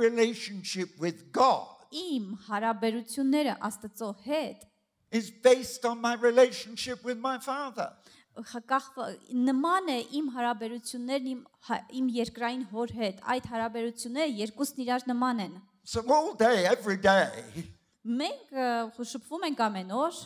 relationship with God Իմ հարաբերությունները Աստծո հետ is based on my relationship with my Father. նման է իմ հարաբերություններն իմ երկրային հոր հետ այդ հարաբերությունները երկուսն իրար նման են So all day, every day, մենք շփվում ենք ամեն օր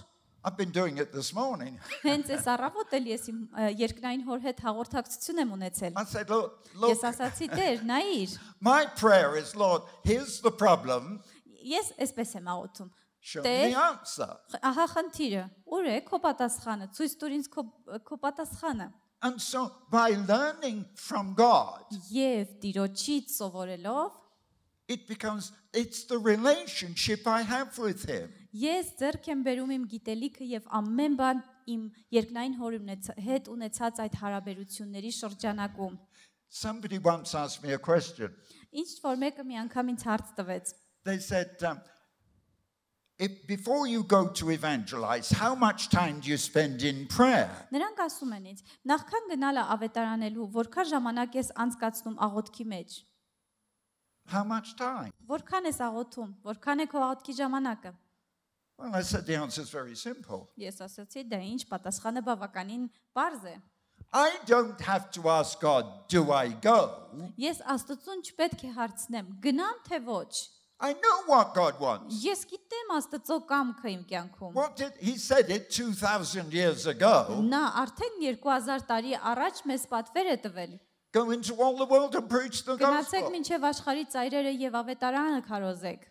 I've been doing it this morning. հենց այս առավոտ էլ ես իմ երկրային հոր հետ հաղորդակցություն եմ ունեցել I said, look, ես ասացի Տեր նայիր my prayer is, Lord, here's the problem. ես այսպես եմ աղոթում Show me the answer. ահա խնդիրը ուր է քո պատասխանը ցույց տուր ինձ քո պատասխանը And so by learning from God, եւ Տիրոջից սովորելով it's the relationship I have with him. Ես ձեռք եմ բերում իմ գիտելիքը եւ ամեն բան իմ երկնային հորի հետ ունեցած այդ հարաբերությունների շրջանակում Somebody once asked me a question. Ինչ որ մեկը մի անգամ ինձ հարց տվեց They said, if before you go to evangelize, how much time do you spend in prayer? Նրանք ասում են ինձ նախքան գնալը ավետարանելու որքան ժամանակ ես անցկացնում աղոթքի մեջ How much time? Որքան ես աղոթում որքան է քո աղոթքի ժամանակը Well, I said the answer is very simple. Ես ասացի դա ինչ պատասխանը բավականին པարզ է I don't have to ask God, do I go? Ես Աստծուն չպետք է հարցնեմ գնամ թե ոչ I know what God wants. Ես գիտեմ Աստծո կամքը իմ կյանքում He said it 2000 years ago. Նա արդեն 2000 տարի առաջ մեզ պատվեր է տվել Go into all the world and preach the Գնացեք gospel. մինչև աշխարհի ծայրերը եւ ավետարանը քարոզեք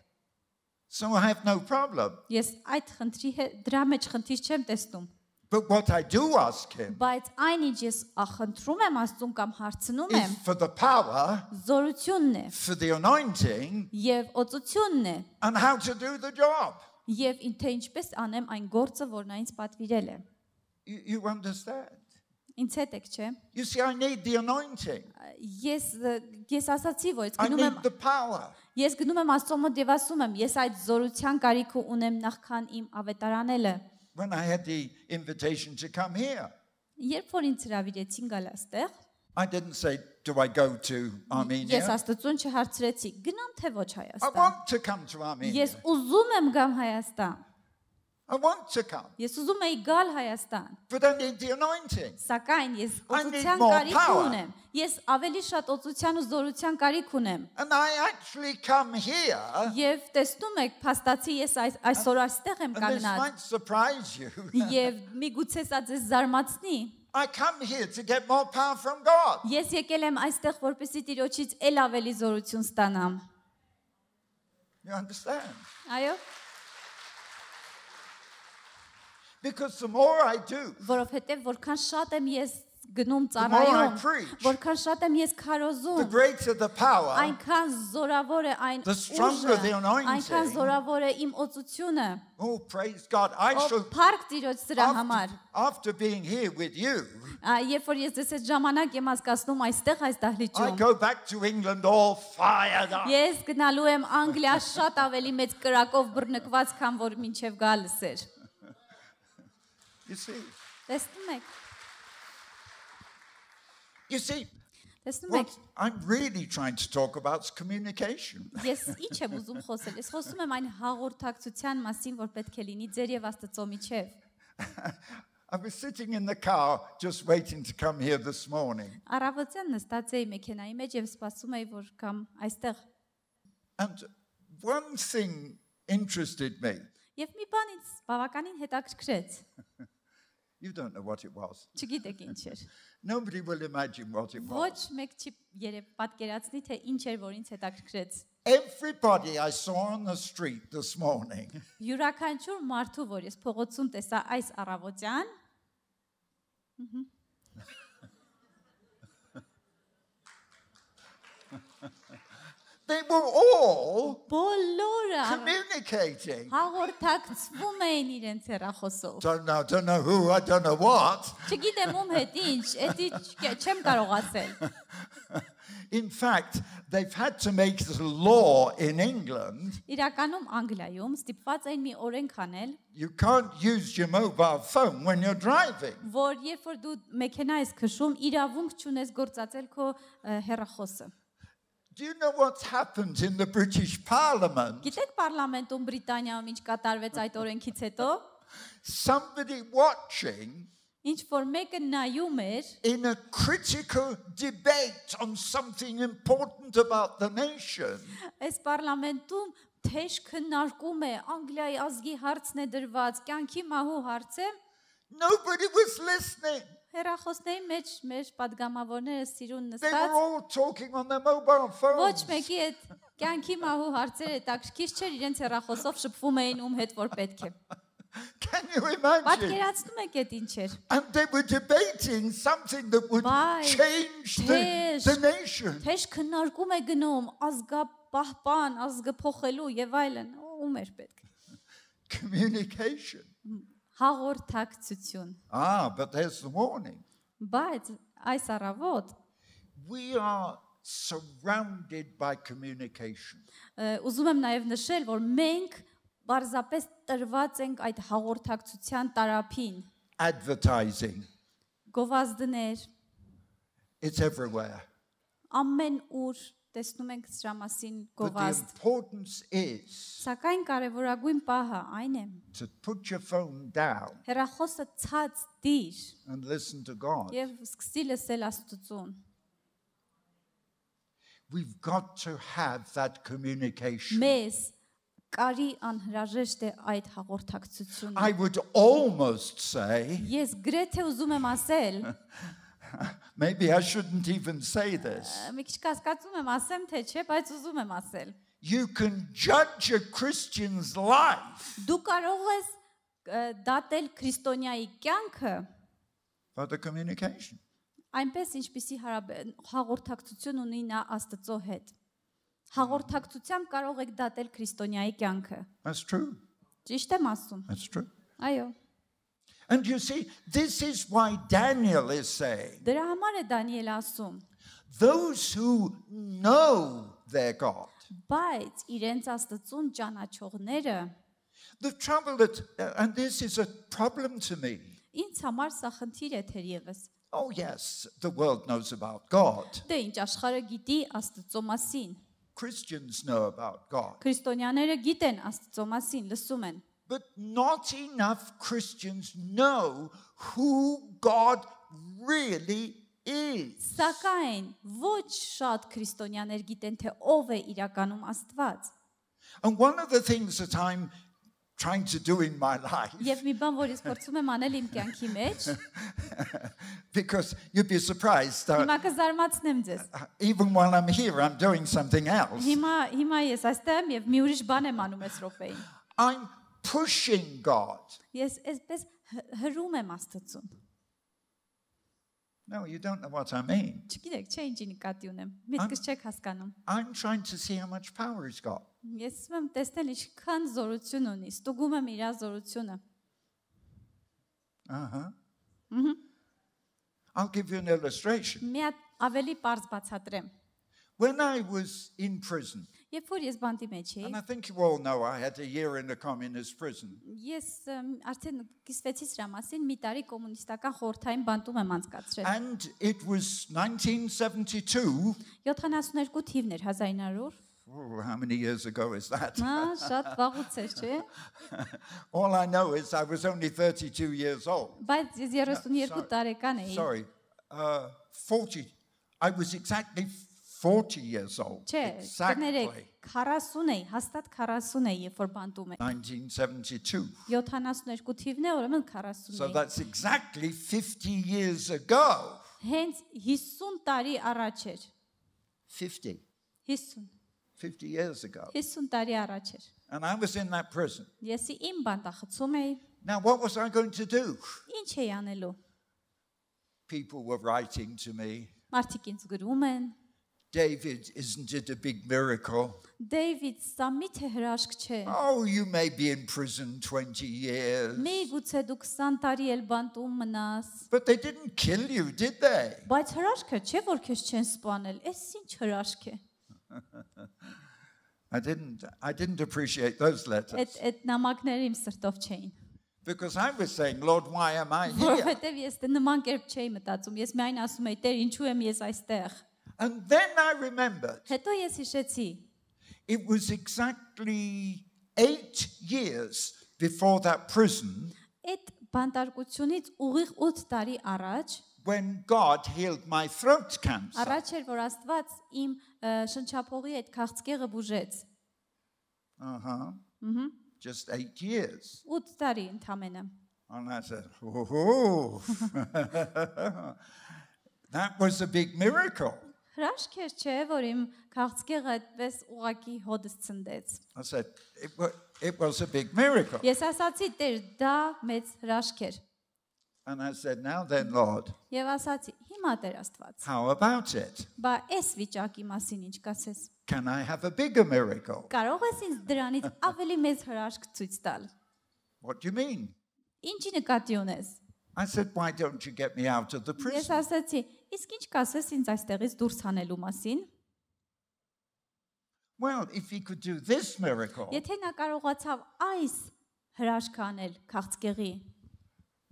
So I have no problem. Ես այդ խնդրի դրա մեջ խնդիր չեմ տեսնում But what I do ask him Բայց այնինչ ես խնդրում եմ Աստծուն կամ հարցնում եմ is for the power, զորությունն է for the anointing, եւ օծությունն է and how to do the job. եւ թե ինչպես անեմ այն գործը որ նա ինձ պատվիրել է You understand? Ինձ հետ եք չէ You see, I need the anointing. Ես ասացի որ I need the power. Ես գնում եմ Աստծո մոտ եւ ասում եմ ես այդ զորության կարիք ունեմ նախքան իմ ավետարանելը When I had the invitation to come here, Երբ որ ինձ հրավիրեցին գալ այստեղ I didn't say, do I go to Ես Armenia? Աստծուն չհարցրեցի գնամ թե ոչ I Հայաստան want to come to Armenia. Ես ուզում եմ գամ Հայաստան I want to come. Ես ուզում եի գալ Հայաստան But I need the anointing. Սակայն ես I need օծության more կարիք power. ունեմ Ես ավելի շատ օծության ու զորության կարիք ունեմ And I actually come here, Եվ տեսնում եք փաստացի ես այսօր այստեղ եմ and this կանգնած might surprise you. Եվ միգուցե սա ձեզ զարմացնի I come here to get more power from God. Ես եկել եմ այստեղ որպեսզի Տիրոջից ել ավելի զորություն ստանամ You understand? Այո Because the more I do, Որովհետև որքան շատ եմ ես գնում the more I ծառայում preach, Որքան շատ եմ ես the քարոզում greater the power, Այնքան զորավոր է այն the stronger the ուժը anointing. Այնքան զորավոր է իմ օծությունը Oh, praise God. I Ո shall, Փառք Տիրոջ սրա համար after being here with you, Երբ որ ես ես այդ ժամանակ եմ հասկացնում այստեղ այս I դահլիճում go back to England all fired up. Ես գնալու եմ Անգլիա շատ ավելի մեծ կրակով բռնկված քան որ մինչև գալս էր You see? Տեսնում եք You see, Տեսնում եք what I'm really trying to talk about is communication. Ես ինչ եմ ուզում խոսել Ես խոսում եմ այն հաղորդակցության մասին որ պետք է լինի ձեր եւ Աստծո միջեւ I was sitting in the car just waiting to come here this morning. Առավոտյան նստած էի մեքենայի մեջ եւ սպասում էի որ կամ այստեղ And one thing interested me. Եվ մի բան ինձ բավականին հետաքրքրեց You don't know what it was. Չգիտեք ինչ էր Nobody will imagine what it was. Ոչ մեկ չի երբ պատկերացնի թե ինչ էր որ ինձ հետաքրքրեց Everybody I saw on the street this morning Յուրաքանչյուր մարդու որ ես փողոցում տեսա այս առավոտյան They were all բոլորը communicating. հաղորդակցվում էին իրենց հեռախոսով Don't know who, I don't know what. Չգիտեմ ում հետ ինչ էդի չեմ կարող ասել In fact, they've had to make this law in England. Իրականում Անգլիայում ստիպված էին մի օրենք անել You can't use your mobile phone when you're driving. որ երբ որ դու մեքենա ես քշում իրավունք չունես գործածել քո հեռախոսը Do you know what's happened in the British Parliament? Գիտեք պարլամենտում Բրիտանիայում ինչ կատարվեց այդ օրենքից հետո, Somebody watching ինչ որ մեկը նայում էր in a critical debate on something important about the nation. այս պարլամենտում թեժ քննարկում է Անգլիայի ազգի հարցն է դրված, կյանքի մահու հարց է, Nobody was listening. հեռախոսների մեջ մեր падգամավորները սիրուն They were նստած all talking on their mobile ոչ phones. մեկի այդ կյանքի մահու հարցերը հետաքրքիր չէր, իրենց հեռախոսով շփվում էին ում հետ որ պետք է։ Can you imagine? Պատկերացնում եք այդ ինչ էր։ And they were debating something that would Why? change the nation. Թեժ քննարկում է գնում ազգապահպան, ազգը փոխելու եւ այլն, ում էր պետք։ Communication. Հաղորդակցություն։ But there's the warning. Բայց այս առավոտ We are surrounded by communication. ուզում եմ նաեւ նշել, որ մենք բարձրապես տրված ենք այդ հաղորդակցության տարափին։ Advertising. Գովազդներ, It's everywhere. ամեն ուր տեսնում ենք սրա մասին But the գովազդ։ importance is Սակայն կարևորագույն պահը այն է, to put your phone down հեռախոսը ցած դիր and listen to God. եւ սկսի լսել Աստծուն։ We've got to have that communication. Մեզ կարի անհրաժեշտ է այդ հաղորդակցությունը։ I would almost say, Ես գրեթե ուզում եմ ասել, maybe I shouldn't even say this. մի քիչ կասկածում եմ ասեմ թե չէ, բայց ուզում եմ ասել։ You can judge a Christian's life Դու կարող ես դատել քրիստոնյայի կյանքը by the communication. այնպես ինչպիսի հաղորդակցություն ունի նա Աստծո հետ։ Հաղորդակցությամբ կարող եք դատել քրիստոնյայի կյանքը։ That's true. Ճիշտ եմ ասում։ That's true. Այո։ And you see, this is why Daniel is saying, Դրա համար է Դանիել ասում, those who know their God. բայց իրենց Աստծուն ճանաչողները The trouble that, and this is a problem to me. ինձ համար սա խնդիր է թերևս։ Oh, yes, the world knows about God. Դե ինչ աշխարհը գիտի Աստծո մասին։ Christians know about God. Քրիստոնյաները գիտեն Աստծո մասին, լսում են։ But not enough Christians know who God really is. Սակայն ոչ շատ քրիստոնյաներ գիտեն թե ով է իրականում Աստված։ And one of the things that I'm trying to do in my life, Եվ մի բան, որ ես փորձում եմ անել իմ կյանքի մեջ, because you'd be surprised, հիմա կզարմացնեմ ձեզ։ even while I'm here, I'm doing something else. Հիմա ես այստեղ եմ եւ մի ուրիշ բան եմ անում այս րոպեին։ I'm pushing God. Ես այսպես հրում եմ Աստծուն։ No, you don't know what I mean. Չգիտեք, չէ ինչի նկատի ունեմ։ Միտքս չեք հասկանում։ I'm trying to see how much power he's got. Ես ուզում եմ տեսնել ինչքան զորություն ունի, ստուգում եմ իր զորությունը։ I'll give you an illustration. Մի հատ ավելի པարզ բացատրեմ։ When I was in prison, Երբ որ ես բանտի մեջ էի, and I think you all know I had a year in a communist prison. ես արդեն կիսվեցի սրա մասին, մի տարի կոմունիստական խորհրդային բանտում եմ անցկացրել։ And it was 1972. 72 թիվն էր 1900։ Oh, how many years ago is that? Շատ վաղուց էր, չէ՞։ All I know is I was only 32 years old. Բայց ես 32 տարեկան էի։ Sorry, 40. I was exactly 40 years old. Չէ, կներեք, 40 էի, հաստատ 40 էի, երբ որ բանտում էի։ 1972. 72 թիվն է, ուրեմն 40 So էի։ that's exactly 50 years ago. Հենց 50 տարի առաջ էր։ 50. 50 years ago. 50 տարի առաջ էր։ And I was in that prison. Ես իմ բանտախցում էի։ Now, what was I going to do? Ինչ էի անելու։ People were writing to me, Մարդիկ ինձ գրում են. David, isn't it a big miracle? Դեյվիդ, սա միթե հրաշք չէ։ Oh, you may be in prison 20 years. Միգուցե դու 20 տարի էլ բանտում մնաս։ But they didn't kill you, did they? Բայց հրաշքը չէ, որ քեզ չեն սպանել։ Էս ինչ հրաշք է։ I didn't appreciate those letters. Այդ նամակները իմ սրտով չէին։ Because I was saying, Lord, why am I here? Որովհետև ես նման կերպ չէի մտածում։ Ես միայն ասում էի, Տեր, ինչու եմ ես այստեղ։ And then I remembered Հետո ես հիշեցի, it was exactly 8 years before that prison այդ բանտարկությունից ուղիղ 8 տարի առաջ when God healed my throat cancer. առաջ էր որ Աստված իմ շնչափողի այդ քաղցկեղը բուժեց։ Just 8 years. 8 տարի ընդամենը։ And I said, oh, that was a big miracle. Հրաշք էր, չէ, որ իմ քաղցկեղը այդպես ուղակի հոդս ցնդեց։ I said, it was a big miracle. Ես ասացի, Տեր, դա մեծ հրաշք էր։ And I said, now then, Lord, Եվ ասացի, հիմա Տեր Աստված, how about it? բա այս վիճակի մասին ինչ կասես։ Can I have a bigger miracle? Կարող ես ինձ դրանից ավելի մեծ հրաշք ցույց տալ։ What do you mean? Ինչի նկատի ունես։ I said, why don't you get me out of the Ես prison? ասացի, իսկ ինչ կասես ինձ այստեղից դուրս հանելու մասին։ Well, if he could do this miracle, Եթե նա կարողացավ այս հրաշքը անել քաղցկեղի,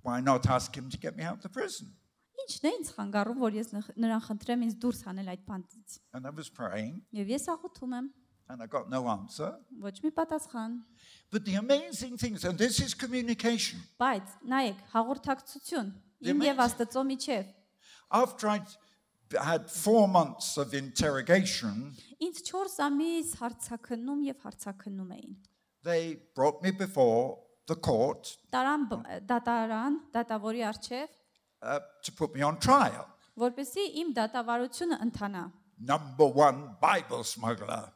why not ask him to get me out of the prison? ինչն է ինձ խանգարում, որ ես նրան խնդրեմ ինձ դուրս հանել այդ բանտից։ And I was praying, Եվ ես աղոթում եմ, and I got no answer. ոչ մի պատասխան։ But the amazing thing is, and this is communication. Բայց նայեք, հաղորդակցություն իմ եւ Աստծո միջև։ After I had 4 months of interrogation, Ինձ 4 ամիս հարցաքննում եւ հարցաքննում էին։ they brought me before the court Դատավորի արչեւ, to put me on trial. որպեսզի իմ դատավարությունը ընթանա։ Number 1 Bible smuggler.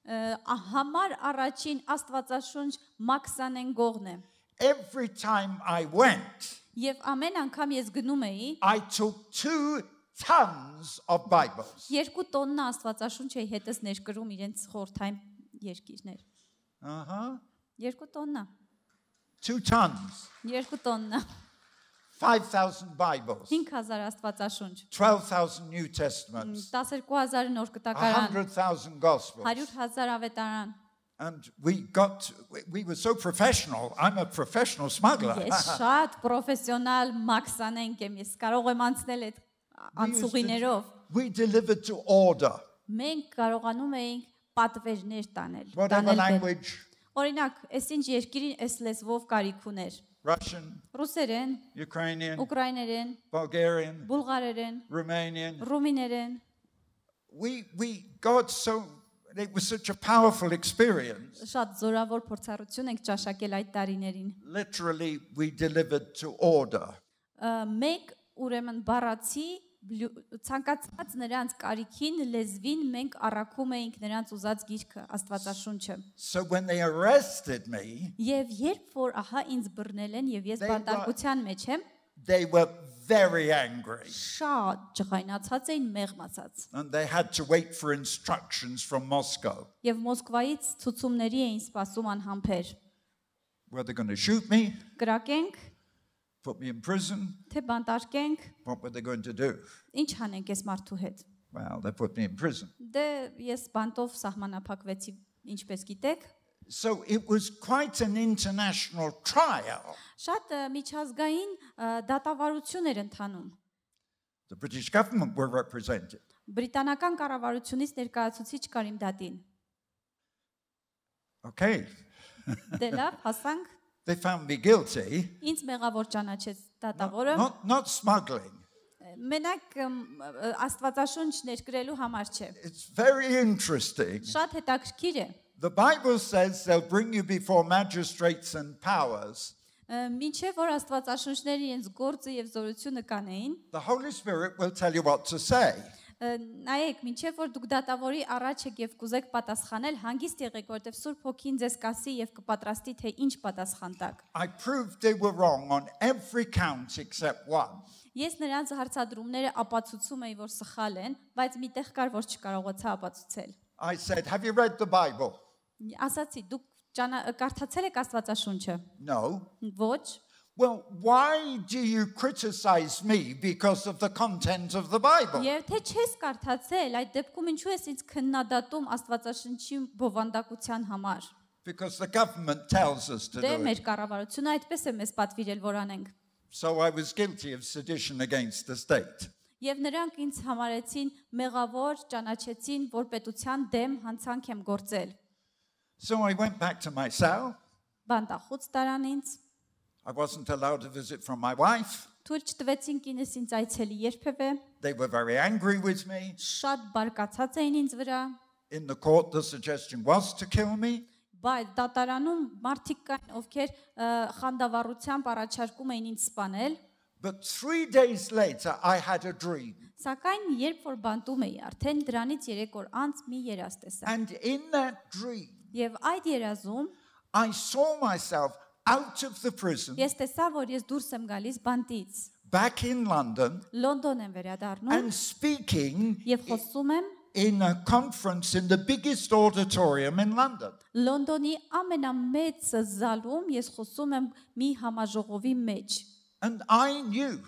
Համար առաջին Աստվածաշունչ Մաքսանեն գողն է։ Every time I went, Եվ ամեն անգամ ես գնում էի, I took 2 tons of Bibles. 2 տոննա Աստվածաշունչ էի հետս ներկրում իրենց խորթային երկիրներ։ 2 տոննա, 2 tons. 2 տոննա, 5,000 Bibles. 5000 Աստվածաշունչ, 12,000 New Testaments. 12000 նոր կտակարան, 100,000 Gospels. 100000 ավետարան։ And we were so professional. I'm a professional smuggler. Ես շատ պրոֆեսիոնալ Մաքսանենք եմ, ես կարող եմ անցնել այդ անցուղիներով։ We delivered to order. Մենք կարողանում էինք պատվերներ տանել, Whatever language, Օրինակ, այս ինչ երկիրին այս լեզվով կարիք ուներ։ Russian, Ռուսերեն, Ukrainian, ուկրաիներեն, Bulgarian, բուլղարերեն, Romanian. ռումիներեն։ It was such a powerful experience. Շատ զորավոր փորձառություն ենք ճաշակել այդ տարիներին։ Literally, we delivered to order. Մենք ուրեմն բառացի ցանկացած նրանց կարիքին լեզվին մենք առաքում էինք նրանց ուզած գիրքը Աստվածաշունչը։ So when they arrested me, Եվ երբ որ ահա ինձ բռնել են եւ ես բանտարկության մեջ եմ, they were very angry. շատ ջղայնացած էին, մեղմացած։ And they had to wait for instructions from Moscow. Եվ Մոսկվայից ցուցումների էին սպասում անհամբեր։ Were they going to shoot me? Կրակենք, Put me in prison? թե բանտարկենք, What were they going to do? ինչ անենք այս մարդու հետ։ Well, they put me in prison. Դե ես բանտով սահմանափակվեցի, ինչպես գիտեք։ So it was quite an international trial. Շատ միջազգային դատավարություն էր ընթանում։ The British government were represented. Բրիտանական կառավարությունից ներկայացուցիչ կար իմ դատին։ Okay. Դե լավ, հասանք։ They found me guilty. Ինձ մեղավոր ճանաչեց դատավորը։ Not smuggling. Մենակ Աստվածաշունչ ներկրելու համար չէ։ It's very interesting. Շատ հետաքրքիր է։ The Bible says they'll bring you before magistrates and powers. Մինչև որ Աստվածաշունչները իրենց գործը եւ զորությունը կանեին, The Holy Spirit will tell you what to say. նայեք, մինչև որ դուք դատավորի առաջ եք եւ կուզեք պատասխանել, հանգիստ եղեք, որտեվ Սուրբ Հոգին ձեզ կասի եւ կպատրաստի թե ինչ պատասխան տաք։ I proved they were wrong on every count except one. Ես նրանց հարցադրումները ապացուցում էի, որ սխալ են, բայց միտեղ կար, որ չկարողացա ապացուցել։ I said, have you read the Bible? Ասացի, դուք կարդացել եք Աստվածաշունչը։ No. Ոչ։ Well, why do you criticize me because of the content of the Bible? Եվ թե չես կարդացել, այդ դեպքում ինչու ես ինձ քննադատում Աստվածաշնչի բովանդակության համար։ Because the government tells us to Դե do մեր it. կառավարությունը այդպես է մեզ պատվիրել, որ անենք։ So I was guilty of sedition against the state. Եվ նրանք ինձ համարեցին մեղավոր, ճանաչեցին, որ պետության դեմ հանցանք եմ գործել։ So I went back to my cell. Բանտախուց տարան ինձ, I wasn't allowed to visit from my wife. թույլ չտվեցին կինս ինձ այցելի երբևէ, They were very angry with me. շատ բարկացած էին ինձ վրա, In the court, the suggestion was to kill me. բայց դատարանում մարդիկ կային, ովքեր խանդավառությամբ առաջարկում էին ինձ սպանել, But 3 days later, I had a dream. սակայն երբ որ բանտում էի, արդեն դրանից 3 օր անց մի երազ տեսա։ And in that dream, Եվ այդ երազում I saw myself out of the prison, ես տեսա, որ ես դուրս եմ գալիս բանտից, back in London, Լոնդոն եմ վերադառնում and speaking եւ խոսում եմ in a conference in the biggest auditorium in London. Լոնդոնի ամենամեծ զալում, ես խոսում եմ մի համաժողովի մեջ։ And I knew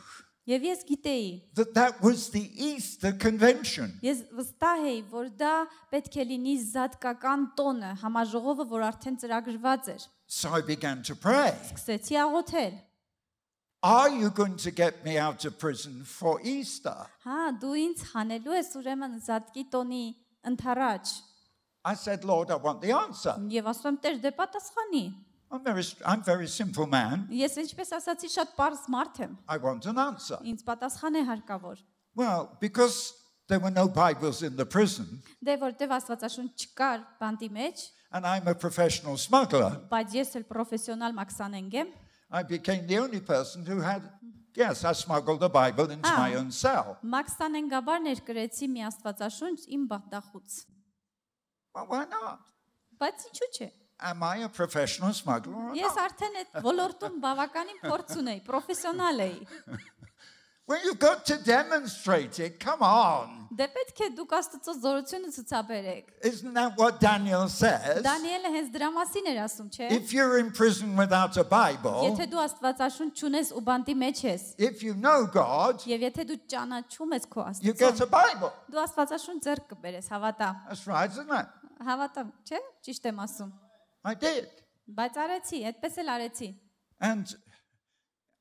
Եվ ես գիտեի, that that was the Easter Convention. ես վստահ էի, որ դա պետք է լինի զատկական տոնը, համաժողովը, որ արդեն ծրագրված էր։ So I began to pray. Սկսեցի աղոթել։ Are you going to get me out of prison for Easter? Հա, դու ինձ հանելու ես ուրեմն զատկի տոնի ընթառաջ։ I said, Lord, I want the answer. Եվ ասում եմ, Տեր, դե պատասխանի։ I'm very simple man. Ես ինչպես ասացի, շատ པարզ մարդ եմ։ I want an answer. Ինձ պատասխան է հարկավոր։ Well, because there were no Bibles in the prison, Դե որտեվ Աստվածաշունչ չկար բանտի մեջ, and I'm a professional smuggler, բայց ես էլ պրոֆեսիոնալ մաքսանենգ եմ, I became the only person who had, yes, I smuggled the Bible into my own cell. մաքսանենգաբար ներկրեցի մի Աստվածաշունչ իմ բանտախուց։ Well, why not? Բայց ինչու՞ չէ։ Am I a professional smuggler or Ես not? արդեն այդ ոլորտում բավականին փորձ ունեի, պրոֆեսիոնալ էի։ Well, you've got to demonstrate it. Come on. Դե պետք է դուք Աստծո զորությունը ցուցաբերեք։ Isn't that what Daniel says? Դանիելը հենց դրա մասին էր ասում, չէ՞։ If you're in prison without a Bible, Եթե դու Աստվածաշունչ չունես ու բանտի մեջ ես, if you know God, եւ եթե դու ճանաչում ես քո you get a Աստծուն, Bible. դու Աստվածաշունչ ձեռք կբերես, հավատա։ That's right, isn't it? Հավատամ, չէ՞։ Ճիշտ եմ ասում։ I did. Բայց արեցի, այդպես էլ արեցի։ And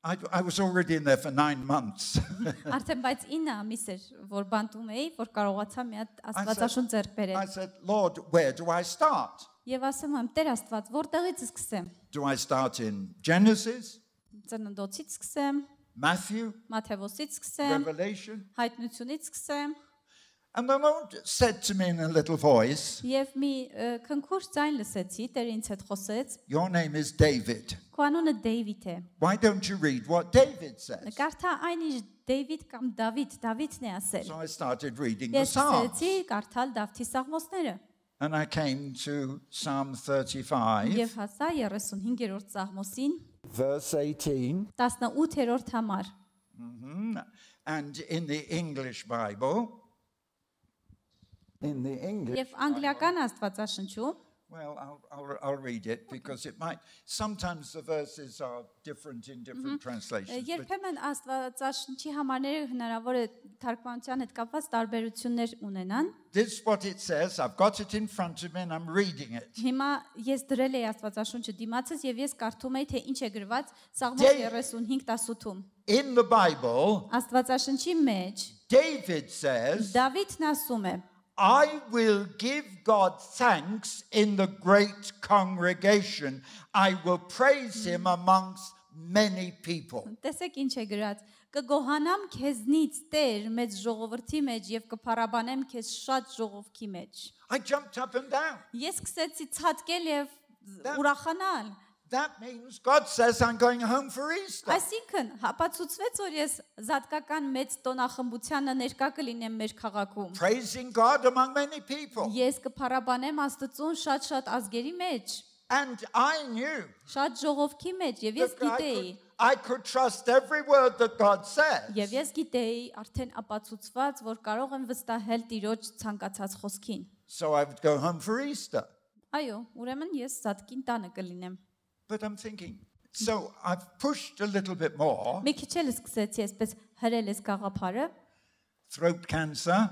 I was already in there for 9 months. Արդեն բայց 9 ամիս էր, որ բանտում էի, որ կարողացա մի հատ Աստվածաշունչ ձեռք I բերել։ said, Lord, where do I start? Եվ ասում եմ, Տեր Աստված, որտեղից սկսեմ։ Do I start in Genesis, Ծննդոցից սկսեմ, Matthew, Մատթեոսից սկսեմ, Revelation? Հայտնությունից սկսեմ, And the Lord said to me in a little voice, եւ մի քնքուշ ձայն լսեցի, Տերը ինձ հետ խոսեց։ your name is David. Քո անունը Դեյվիդ է։ Why don't you read what David says? Կարդա այն ինչ Դեյվիդ կամ Դավիթն է ասել։ So I started reading the Ես Psalms. սկսեցի կարդալ Դավթի սաղմոսները And I came to Psalm 35, եւ հասա 35-րդ սաղմոսին, verse 18. 18-րդ համար։ And in the English Bible, in the English, Եվ անգլիական Աստվածաշնչում, well, I'll read it because it might, sometimes the verses are different in different translations. But երբեմն Աստվածաշնչի համարները հնարավոր է թարգմանության հետ կապված տարբերություններ ունենան։ this is what it says. I've got it in front of me and I'm reading it. Հիմա ես դրել էի Աստվածաշունչը դիմացս եւ ես կարդում էի թե ինչ է գրված Սաղմոս 35:18-ում։ In the Bible, Աստվածաշնչի մեջ David says, Դավիթն ասում է. I will give God thanks in the great congregation. I will praise him amongst many people. Տեսեք ինչ է գրած. Կգոհանամ քեզնից Տեր մեծ ժողովրդի մեջ եւ կփառաբանեմ քեզ շատ ժողովքի մեջ։ I jumped up and down. Ես սկսեցի ցածկել եւ ուրախանալ։ That means God says I'm going home for Easter. Այսինքն հապացուցվեց, որ ես զատկական մեծ տոնախմբությանը ներկա կլինեմ մեր քաղաքում։ Praising God among many people. Ես կփառաբանեմ Աստծուն շատ ազգերի մեջ, And I knew շատ ժողովքի մեջ եւ ես that գիտեի, I could trust every word that God says. եւ ես գիտեի արդեն ապացուցված, որ կարող եմ վստահել Տիրոջ ցանկացած խոսքին։ So I would go home for Easter. Այո, ուրեմն ես զատկին տանը կլինեմ։ But I'm thinking, so I've pushed a little bit more. Մի քիչ էլ սկսեցի այսպես հրել ես գաղափարը, Throat cancer.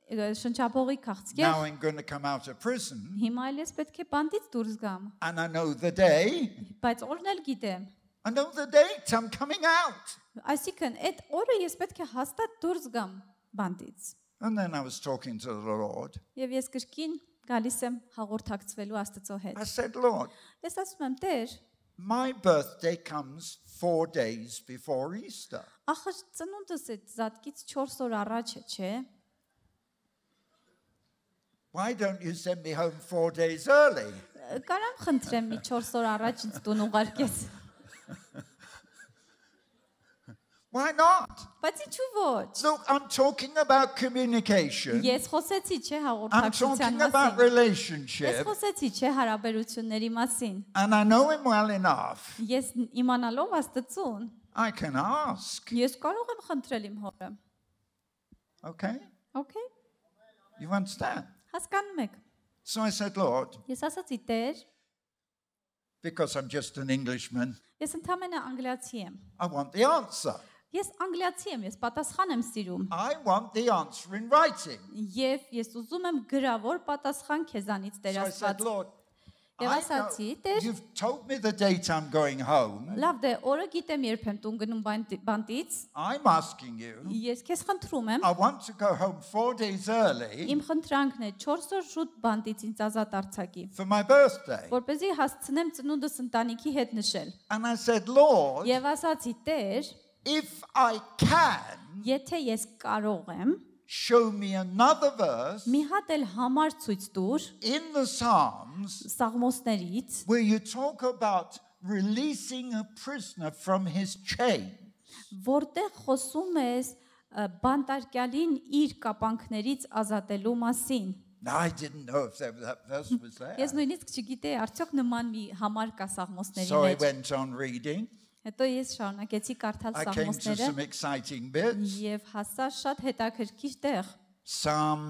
շնչապողի քաղցկեղ։ Now I'm going to come out of prison. Հիմա էլ ես պետք է բանտից դուրս գամ, And I know the day բայց օրն էլ գիտեմ։ I know the date, I'm coming out. Այսինքն այդ օրը ես պետք է հաստատ դուրս գամ բանտից։ And then I was talking to the Lord. Եվ ես կրկին գալիս եմ հաղորդակցվելու Աստծո հետ։ I said, Lord, Ես ասում եմ, Տեր, my birthday comes 4 days before Easter. ախր ծնունդս այդ զատկից 4 օր առաջ է, չէ՞։ Why don't you send me home 4 days early? Կարամ խնդրեմ մի 4 օր առաջ ինձ տուն ուղարկես։ Why not? Բայց ինչու ոչ։ Look, I'm talking about communication. Ես խոսեցի, չէ, I'm հաղորդակցության talking about մասին։ Ես relationship. խոսեցի, չէ, հարաբերությունների մասին։ And I know him well enough. Ես իմանալով Աստծուն, I can ask. ես կարող եմ խնդրել իմ հորը։ Okay? Okay, You understand? հասկանում եք։ So I said, Lord, Ես ասացի, Տեր, because I'm just an Englishman, ես ընդամենը անգլիացի եմ։ I want the answer. Ես անգլիացի եմ, ես պատասխան եմ սիրում։ I want the answer in writing. Եվ ես ուզում եմ գրավոր պատասխան քեզանից, Տեր So I said, Աստված։ Lord, Եվ ասացի, Տեր, you've told me the date I'm going home. լավ դե, օրը գիտեմ երբ եմ տուն գնում բանտից։ I'm asking you, Ես քեզ խնդրում եմ, I want to go home 4 days early իմ խնդրանքն է 4 օր շուտ բանտից ինձ ազատ արձակի, for my birthday. որպեսզի հասցնեմ ծնունդս ընտանիքի հետ նշել։ And I said, Lord, Եվ ասացի, Տեր, if I can, եթե ես կարող եմ, show me another verse մի հատ էլ համար ցույց տուր in the Psalms Սաղմոսներից, where you talk about releasing a prisoner from his chain. որտեղ խոսում ես բանտարկյալին իր կապանքներից ազատելու մասին։ Now, I didn't know if that verse was there. Ես նույնիսկ չգիտեի, արդյոք նման մի համար կա Սաղմոսների So I մեջ։ went on reading. Հետո ես շարունակեցի կարդալ I came to Սաղմոսները some exciting bits. եւ հասա շատ հետաքրքիր տեղ։ Psalm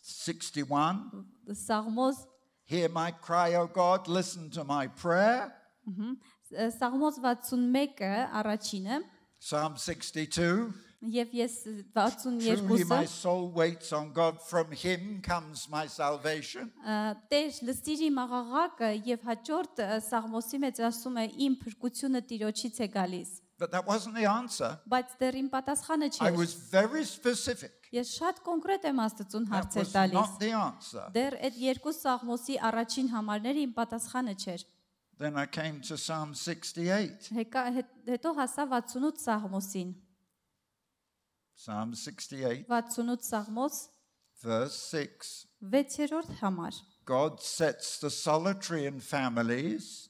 61. Սաղմոս Hear my cry, O God, listen to my prayer. Սաղմոս 61-ը առաջինը Psalm 62. եւ ես Truly my 62-ը soul waits on God, from him comes my salvation. Տեր լսիր իմ աղաղակը եւ հաջորդ Սաղմոսի մեջ ասում է իմ փրկությունը Տիրոջից է գալիս։ But that wasn't the answer. Բայց դեռ իմ պատասխանը I չէր։ was very specific. Ես շատ կոնկրետ եմ Աստծուն That հարցեր was տալիս։ not the answer. Դեռ այդ երկու Սաղմոսի առաջին համարները իմ պատասխանը չէր։ Then I came to Psalm 68. Հետո հասա 68 Սաղմոսին։ Psalm 68, 68 Սաղմոս verse 6. 6-րդ համար։ God sets the solitary in families.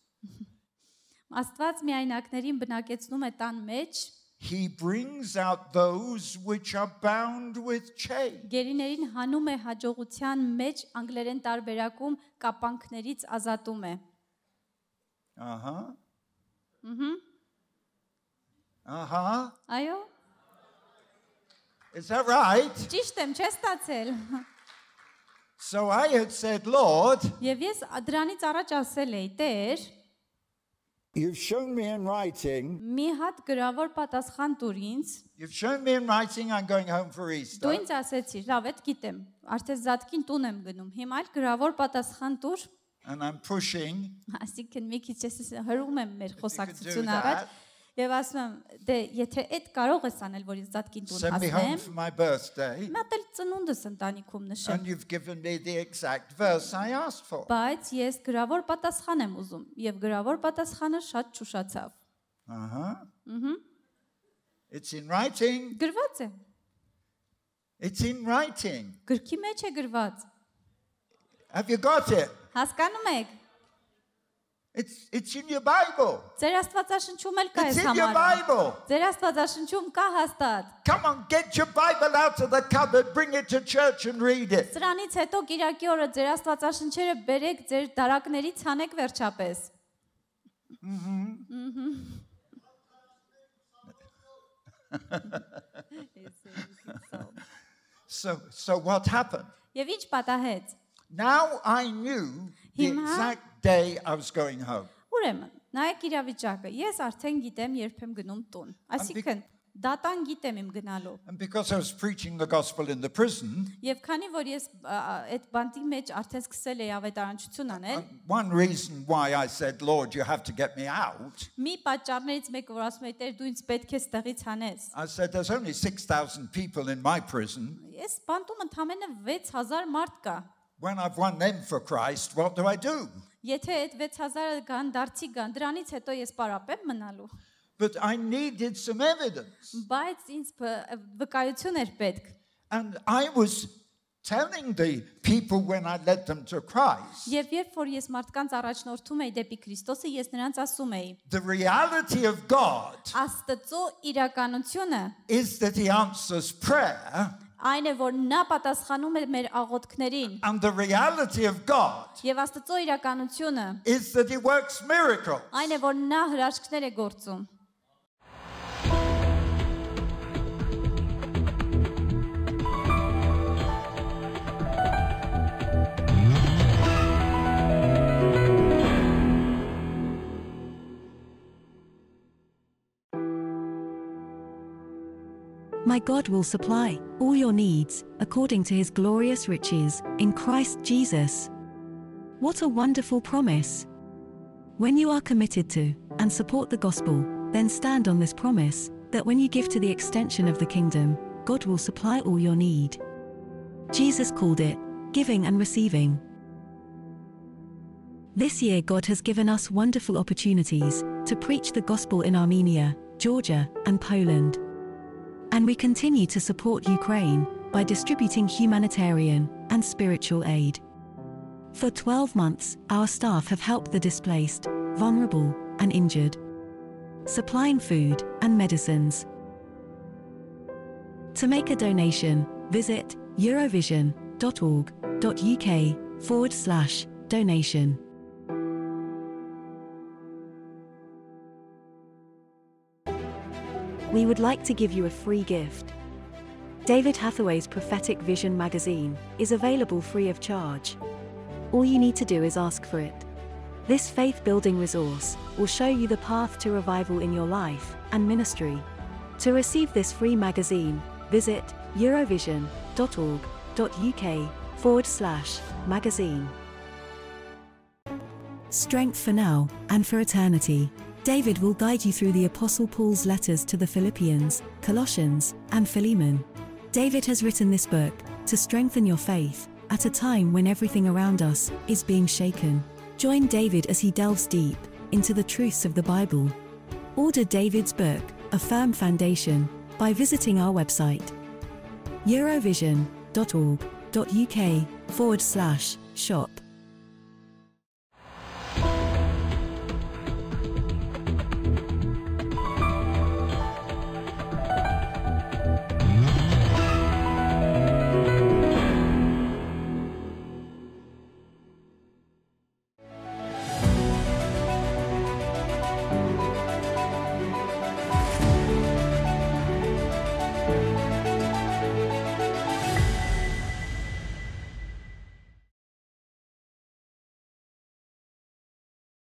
Աստված միայնակներին բնակեցնում է տան մեջ, He brings out those which are bound with chain. գերիներին հանում է հաջողության մեջ, անգլերեն տարբերակում կապանքներից ազատում է։ Uh-huh. Ահա։ Uh-huh. Այո, Is that right? ճիշտ եմ, չես ստացել։ So I had said, Lord, Եվ ես դրանից առաջ ասել էի, Տեր, you've shown me in writing. մի հատ գրավոր պատասխան տուր ինձ։ You've shown me in writing I'm going home for Դու Easter. ինձ ասեցիր, լավ, այդ գիտեմ, արդեն զատկին տուն եմ գնում։ Հիմա էլ գրավոր պատասխան տուր, And I'm pushing. այսինքն մի քիչ ես հրում եմ մեր խոսակցությունը that. առաջ, եւ ասում եմ, դե եթե այդ կարող ես անել, որ ինձ զատկին տուն Send me home հասնեմ, for my birthday. մատ էլ ծնունդս ընտանիքում նշեմ։ And you've given me the exact verse I asked for. Բայց ես գրավոր պատասխան եմ ուզում, եւ գրավոր պատասխանը շատ ճուշացավ։ Uh-huh. It's in writing. Գրված է, It's in writing. գրքի մեջ է գրված։ Have you got it? Հասկանում եք։ It's in your Bible. Ձեր Աստվածաշնչում էլ կա It's այս in your համարը։ Bible. Ձեր Աստվածաշնչում կա հաստատ։ Come on, get your Bible out of the cupboard, bring it to church and read it. Սրանից հետո Կիրակի օրը ձեր Աստվածաշնչերը բերեք ձեր դարակներից հանեք վերջապես։ So what happened? Եվ ինչ պատահեց։ Now I knew the Հիմա- exact day I was going home. Ուրեմն, նայեք իրավիճակը։ Ես արդեն գիտեմ երբ եմ գնում տուն։ Այսինքն, Դատան գիտեմ իմ գնալու։ And because I was preaching the gospel in the prison, Եվ քանի որ ես այդ բանտի մեջ արդեն սկսել էի ավետարանչություն անել, one reason why I said, Lord, you have to get me out, մի պատճառներից մեկը որ ասում եմ Տեր դու ինձ պետք է ստեղից հանես։ I said, there's only 6,000 people in my prison. Ես բանտում ընդամենը 6000 մարդ կա։ When I've won them for Christ, what do I do? Եթե այդ 6000-ը կան, դարձի կան, դրանից հետո ես պարապեմ մնալու։ But I needed some evidence. Բայց ինձ վկայություն էր պետք։ And I was telling the people when I led them to Christ, Եվ երբ որ ես մարդկանց առաջնորդում էի դեպի Քրիստոսը, ես նրանց ասում էի. the reality of God Աստծո իրականությունը is that He answers prayer, այն է, որ նա պատասխանում է մեր աղոթքներին, and the reality of God եւ Աստծո իրականությունը is that He works miracles. այն է, որ նա հրաշքներ է գործում։ My God will supply all your needs according to His glorious riches in Christ Jesus. What a wonderful promise! When you are committed to and support the gospel, then stand on this promise that when you give to the extension of the kingdom, God will supply all your need. Jesus called it giving and receiving. This year, God has given us wonderful opportunities to preach the gospel in Armenia, Georgia, and Poland. And we continue to support Ukraine by distributing humanitarian and spiritual aid. For 12 months, our staff have helped the displaced, vulnerable, and injured, supplying food and medicines. To make a donation, visit eurovision.org.uk/donation. We would like to give you a free gift. David Hathaway's Prophetic Vision magazine is available free of charge. All you need to do is ask for it. This faith-building resource will show you the path to revival in your life and ministry. To receive this free magazine, visit eurovision.org.uk/magazine. Strength for now and for eternity. David will guide you through the Apostle Paul's letters to the Philippians, Colossians, and Philemon. David has written this book to strengthen your faith at a time when everything around us is being shaken. Join David as he delves deep into the truths of the Bible. Order David's book, A Firm Foundation, by visiting our website, eurovision.org.uk/shop.